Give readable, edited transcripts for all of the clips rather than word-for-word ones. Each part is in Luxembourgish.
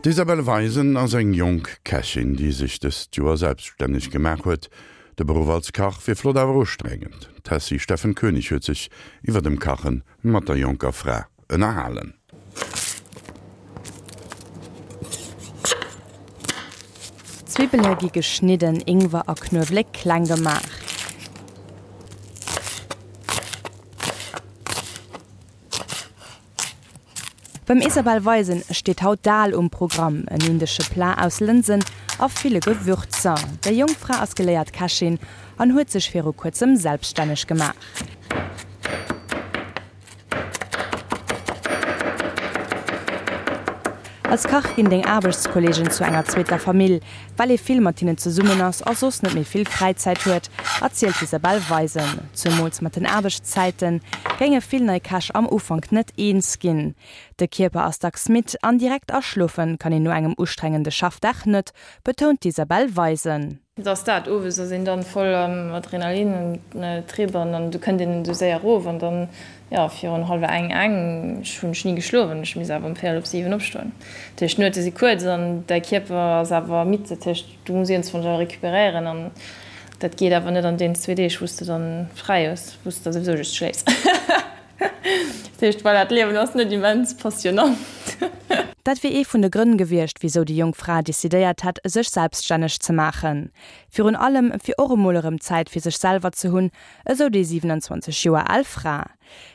D'Isabelle Weisen ass eng jonk Kächin, déi sech dëst Joer selbststänneg gemaach huet. De Beruff als Kach wier flott awer ustrengend. D'Tessy Steffen Koenig huet sech iwwer dem Kache mat der jonker Fra ënnerhalen. D'Zwibbele gi geschnidden, Ingwer a Knuewelek kleng gemaach. Beim Isabelle Weisen steet haut Dal um Programm, en indesche Plat aus Lënsen a ville Gewürzer. Déi jonk Fra ass geléiert Kächin an huet sech viru kuerzem selbststänneg gemaach. Als Kach ginn deng Aarbechtskolleegen zu enger zweeter Famill, well ee vill mat hinnen zesummen ass a soss net méi vill Fräizäit huet, erzielt d'Isabelle Weisen. Zemools mat den Aarbechtszäite géinge vill nei Käch am Ufank net eens ginn. De Kierper ass dacks midd an direkt aschlofe kann een no engem ustrengende Schaffdag net, betount d'Isabelle Weisen. Et ass dat, owes ass een dann voll am Adrenalin an Trip an dann du kënnt een esou séier erof an dann, jo, virun hallwer eng, eng, ech hunn ech ni geschlof an ech misst awer um véierel op 7 opstoen. Dat heescht, d'Nuete si kuerz an däi Kierper ass awer midd, dat heescht, du muss iergendwann awer recuperéieren an dat geet awer net an deenen zwee Deeg, wou s de dann fräi hues, wou s de da souwisou just schléifs. Dat heescht, voilà, d'Liewen ass net immens passionant. Dat wier ee vun de Grënn gewiescht, wisou déi jonk Fra decidéiert hätt, sech selbststänneg ze maachen. Virun allem, fir och emol erëm Zäit fir sech selwer ze hunn, esou déi 27 Joer al Fra.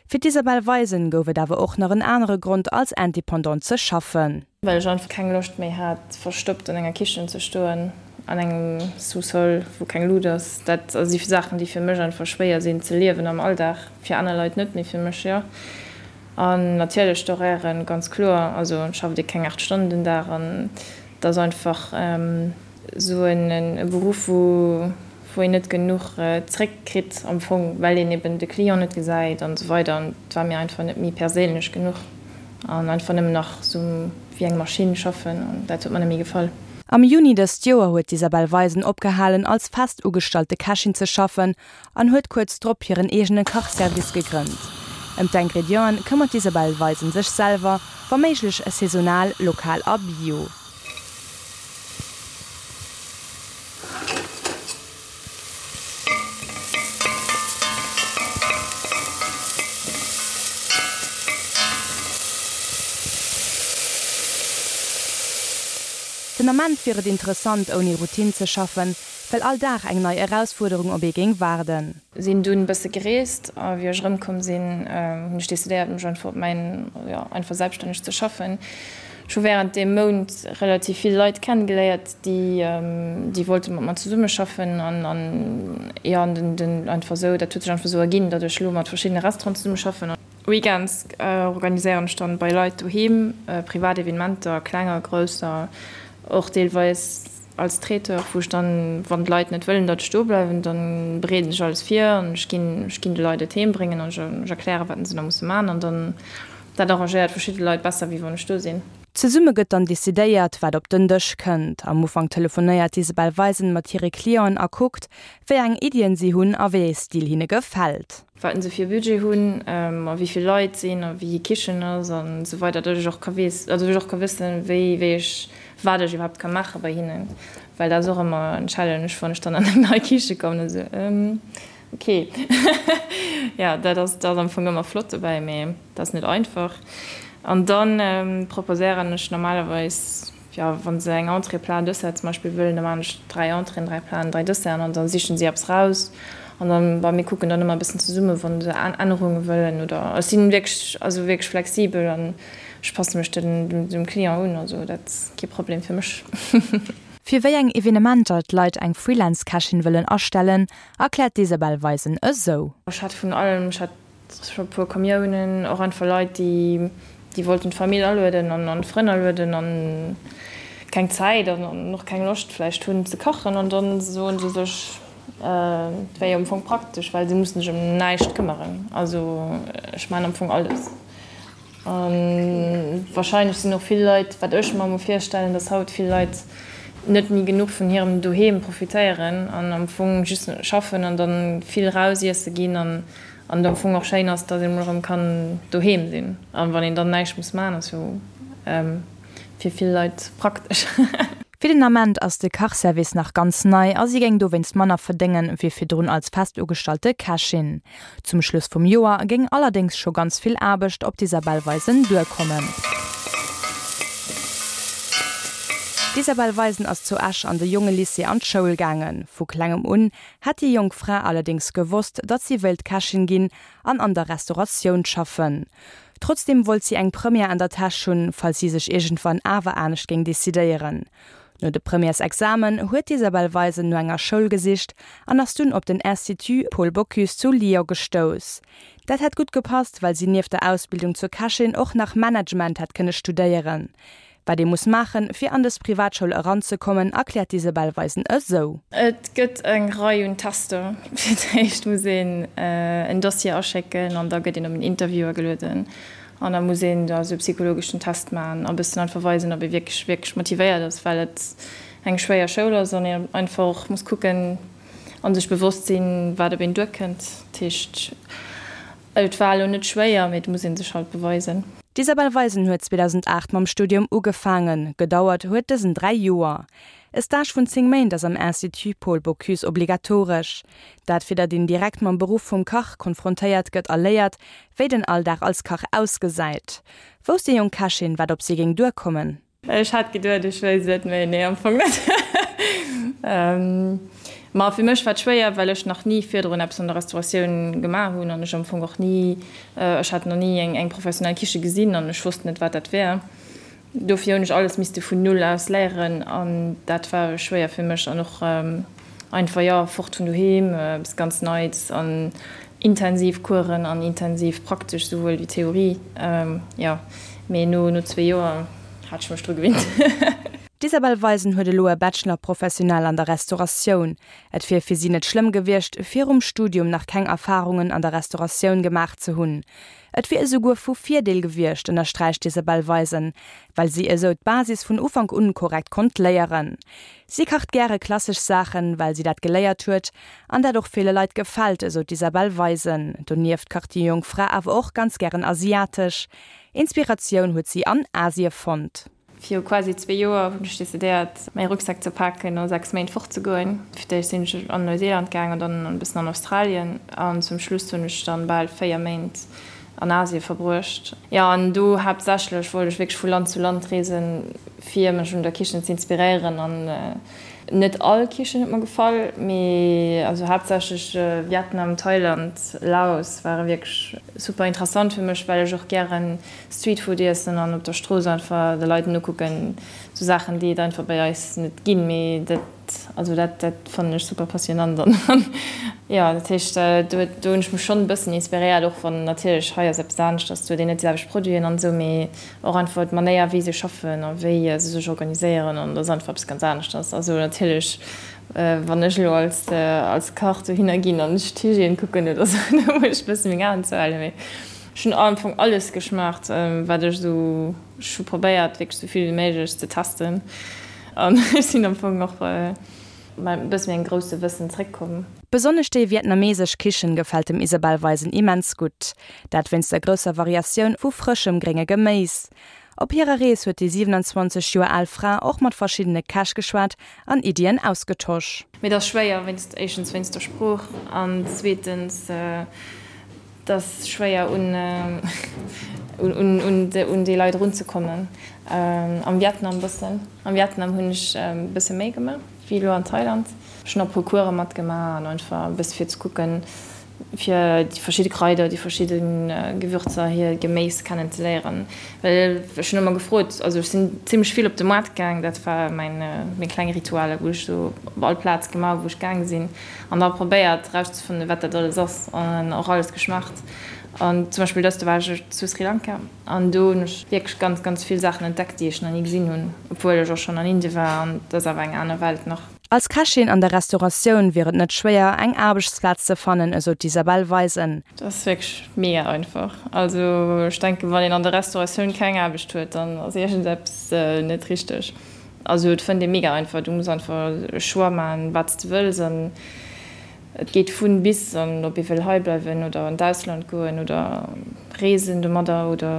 Fir d'Isabelle Weisen gouf et awer och nach en anere Grond, als Independante ze schaffen. Well ech einfach keng Loscht méi hat, verstoppt an enger Kichen ze stoen, an engem Sous-sol, wou keng Lut ass. Dat si Saachen, déi fir mech einfach schwéier sinn ze liewen am Alldag. Fir aner Leit net, mee fir mech jo. An natierlech d'Horairen, ganz kloer. Also et schafft ee keng 8 Stonnen den Dag an et ass einfach esou e Beruff, wou wou een net genuch zréck kritt am Fong, well een eben de Client net gesäit an esou weider an et war mir einfach net méi perséinlech genuch an einfach nëmmen nach esou wéi eng Maschinn schaffen an dat huet mer net méi gefall. Am Juni dëst Joer huet d'Isabelle Weisen opgehalen als fest ugestallte Kächin ze schaffen an huet kuerz drop hiren eegene Kachservice gegrënnt. Ëm d'Ingredienten këmmert d'Isabelle Weisen sech selwer, wa méiglech saisonal, lokal a bio. Den Ament wier et interessant, ouni Routine ze schaffen, well all Dag eng nei Erausfuerderung op ee géing waarden. Sinn dunn bësse gereest a wéi ech erëmkomm sinn, hunn ech decidéiert mech einfach op mäin, jo, einfach selbststänneg ze schaffen. Ech hu wärend deem Mount relativ vill Leit kennegeléiert, déi déi wollte mat mer zesummeschaffen an an jo an den den einfach esou, dat huet sech einfach esou erginn, datt ech elo mat verschiddene Restauranten zesummeschaffen. Weekends organiséieren ech dann bei Leit doheem privat Evenementer, klenger, grousser, och deelweis als Traiteur, wou ech dann, wann d'Leit net wëllen, datt ech do bleiwen, dann bereeden ech alles vir an ech ginn ech ginn de Leit et heem bréngen an ech erklären, wat se da musse man an dann Dat arrangéiert verschidde Leit besser, wéi wann ech do sinn. Zesumme gëtt dann decidéiert, wat op den Dësch kënnt. Am Ufank telefonéiert d'Isabelle Weisen mat hire Clienten a kuckt, wéi eng Iddien si hunn a wéi ee Stil hinne gefält. Wat se fir e Budget hunn a wéi vill Leit sinn a wéi hir Kichen ass an esou weider, datt ech och ka weess, also datt ech och ka wëssen, wéi, wéi ech, wat ech iwwerhaapt ka maache bei hinnen. Well dat ass och ëmmer en Challenge, wann ech dann an eng nei Kiche kommen, esou, Ok, jo dat ass dat ass am Fong ëmmer flott dobäi, mee dat ass net einfach. An dann proposéieren ech normalerweis, jo wa se eng Entrée, Plat, Dessert zum Beispill wëllen, da maachen ech 3 Entréeën, 3 Platen, 3 Desserten an da sichen si eppes raus. An dann, bon, mir kucken dann ëmmer e bëssen zesummen, wa se Ännerunge wëllen oder ech sinn wierklech, also wierklech flexibel an ech passe mech dem Client un, also dat ass kee Problem fir mech. Fir wéi eng Evenementer d'Leit eng Freelance-Kächin wëllen astellen, Erkläert d'Isabelle Weisen esou. Ech hat vun allem, ech hat scho e puer Camionen, och einfach Leit, déi déi wollten d'Famill alueden an an d'Frënn alueden an keng Zäit an och keng Loscht vläicht hunn ze kachen an dann soen se sech, et wär jo am Fong praktesch, well se mussen sech ëm näischt këmmeren. Also ech maachen am Fong alles. A wahrscheinlech sinn och vill Leit, wat ech mer emol virstellen, dass haut vill Leit net méi genuch vun hirem Doheem profitéieren an am Fong just schaffen an dann vill raus iesse ginn an et am Fong och schéin ass, dass een emol erëm kann doheem sinn. An wann een dann näischt muss maachen, ass jo. fir vill Leit praktesch. Fir den Ament ass de Kachservice nach ganz nei a si géing dowéinst manner verdéngen, wéi virdrun als fest ugestallte Kächin. Zum Schluss vum Joer géing allerdéngs scho ganz vill Aarbecht op d'Isabelle Weisen duerkommen. D'Isabelle Weisen ass zu Esch an de Jongelycée an d'Schoul gaangen. Vu klengem un hätt déi jonk Fra allerdéngs gewosst, datt si wéilt Kächin ginn an an der Restauratioun schaffen. Trotzdeem wollt si eng Première an der Täsch hunn, falls si sech iergendwann awer anescht géing decidéieren. No de Premièresexamen huet d'Isabelle Weisen no enger Schoul gesicht an ass dunn op den Institut Paul Bocuse zu Lyon gestouss. Dat hätt gutt gepasst, well si nieft der Ausbildung zur Kächin och nach Management hätt kënne studéieren. Wat ee muss maachen, fir an dës Privatschoul eranzekommen, erkläert d'Isabelle Weisen esou. Et gëtt eng Rei un Tester. Fir d'éischt muss een en Dossier aschécken an da gëtt een op en Interview agelueden an da muss een da sou e psychologeschen Test maachen a bëssen einfach weisen, ob ee wierklech, wierklech motivéiert ass, well et eng schwéier Schoul ass an een einfach och muss kucken a sech bewosst sinn, wat op een duerkënnt. Dat heescht. Et war elo net schwéier, mee et muss een sech halt beweisen. D'Isabelle Weisen huet 2008 mam Studium ugefaangen. Gedauert huet dësen 3 Joer. E Stage vun 10 Méint ass am Institut Paul Bocuse obligatoresch. Dat fir datt een direkt mam Beruff vum Kach konfrontéiert gëtt a léiert, wéi den Alldag als Kach ausgesäit. Wousst déi jonk Kächin, wat op si géing duerkommen? Ech hat geduet ech wéisst et, mee nee am Fong net. Ma fir mech war et schwéier, well ech nach ni virdrun eppes an der Restauratioun gemaach hunn an ech am Fong och ni, ech hat nach ni eng professionell Kiche gesinn an ech wosst net wat dat wär. Dofir hunn ech alles misste vun null aus léieren an dat war schwéier fir mech an och einfach, jo, fort vun doheem, eppes ganz Neits an intensiv Coursen an intensiv praktesch souwuel wéi Theorie, jo. Mee no zwee Joer hat ech mech dru gewinnt. D'Isabelle Weisen huet elo e Bachelor professionnel an der Restauratioun. Et wier fir si net schlëmm gewiescht, virum Studium nach keng Erfarungen an der Restauratioun gemaach ze hunn. Et wier esouguer vu Virdeel gewiescht, ënnersträicht d'Isabelle Weisen, well si esou d'Basis vun Ufank un korrekt konnt léieren. Si kacht gäre klassesch Saachen, well si dat geléiert huet an dat och ville Leit gefält, esou d'Isabelle Weisen. Donieft kacht déi jonk Fra awer och ganz gären asiatesch. Inspiratioun huet si an Asie fonnt. Viru quasi zwee Joer hunn ech decidéiert, mäi Rucksak ze paken a 6 Méint fort ze goen. Fir d'éischt sinn ech an Neuseeland gaang an dann e bëssen an Australien an zum Schluss hunn ech dann bal 4 Méint an Asie verbruecht. Jo, an do haaptsächlech wollt ech wierklech vu Land zu Land reesen, fir mech un der Kichen ze inspiréieren an net all Kichen huet mer gefall, mee also haaptsächlech Vietnam, Thailand, Laos ware wierklech super interessant fir mech, well ech och gären Streetfood iessen an op der Strooss einfach de Leit nokucken, sou Saachen déi et einfach bei eis net ginn, mee dat also dat dat fannen ech super passionant an jo dat heescht do do hunn ech mech schonn e bëssen inspiréiert, och wann natierlech hei ass eppes aneschters, do huet een net déi selwecht Produiten an esou, mee och einfach d'Manéier wéi se schaffen a wéi se sech organiséieren an dat ass einfach eppes ganz aneschters. Also natierlech wann ech elo als als Kach dohinner ginn an ech d'Hygiène kucken oder sou, da muss ech e bësse meng Aen zouhalen, mee ech hunn am Fong alles geschmaacht wat ech esou, ech hu probéiert wierklech esou vill wéi méiglech ze testen an ech sinn am Fong och mat e bësse méi engem grousse Wëssen zréckkomm. Besonnesch déi vietnamesesch Kichen gefält dem Isabelle Weisen immens gutt. Dat wéinst der grousser Variatioun vu frëschem grénge Geméis. Op hirer Rees huet déi 27 Joer al Fra och mat verschiddene Käch geschwat an Iddien ausgetosch. Mee et ass schwéier, wéinst, éischtens wéinst der Sprooch an zweetens et ass schwéier un un déi Leit erunzekommen. Am Vietnam bëssen, am Vietnam hunn ech e bësse méi gemaach wéi elo an Thailand. Ech hunn och e puer Course matgemaach an einfach e bësse fir ze kucken, fir déi verschidde Kraider, déi verschidde Gewürzer, hir Geméis kennen ze léieren. Well ech hunn ëmmer gefrot, also ech sinn zimmlech vill op de Moart gaang, dat war mäin, meng kleng Ritualer, wou ech sou op all Plaz gemaach hu wou ech gaang sinn an da probéiert erauszefannen, wat dat alles ass an och alles geschmaacht. An zum Beispill dëst, do war ech zu Sri Lanka an do hunn ech wierklech ganz, ganz vill Saachen entdeckt, déi ech nach ni gesinn hunn, obwuel ech och schonn an Indien war an dat ass awer eng aner Welt nach. Als Kächin an der Restauratioun wier et net schwéier, eng Aarbechtsplaz ze fannen, esou d'Isabelle Weisen. Dat ass wierklech mega einfach. Also ech denken, wann een an der Restauratioun keng Aarbecht huet, dann ass iergendeppes net richteg. Also et fënnt ee mega einfach. Du muss einfach e Choix maachen, wat s de wëlls. An. Et geet vun bis an ob ee wëll hei bleiwen oder an d'Ausland goen oder reesen domadder oder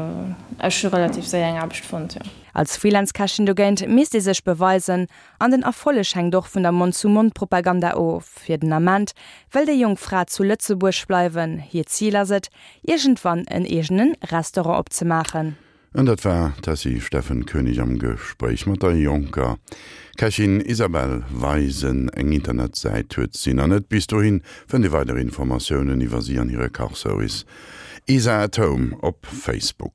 ech hu relativ séier eng Aarbecht fonnt, jo. Als Freelance-Kächin dogéint misst ee sech beweisen an den Erfolleg hänkt och vun der Mond-zu-Mond-Propaganda of. Fir den Ament wëll déi jonk Fra zu Lëtzebuerg bleiwen. Hiert Zil ass et, iergendwann en eegene Restaurant opzemaachen. An dat war d'Tessy Steffen Koenig am Gespréich mat der jonker Kächin Isabelle Weisen. Eng Internetsäit huet si nach net. Bis dohin fënnt Dir weider Informatiounen iwwer si an hire Kachservice Isa at Home op Facebook.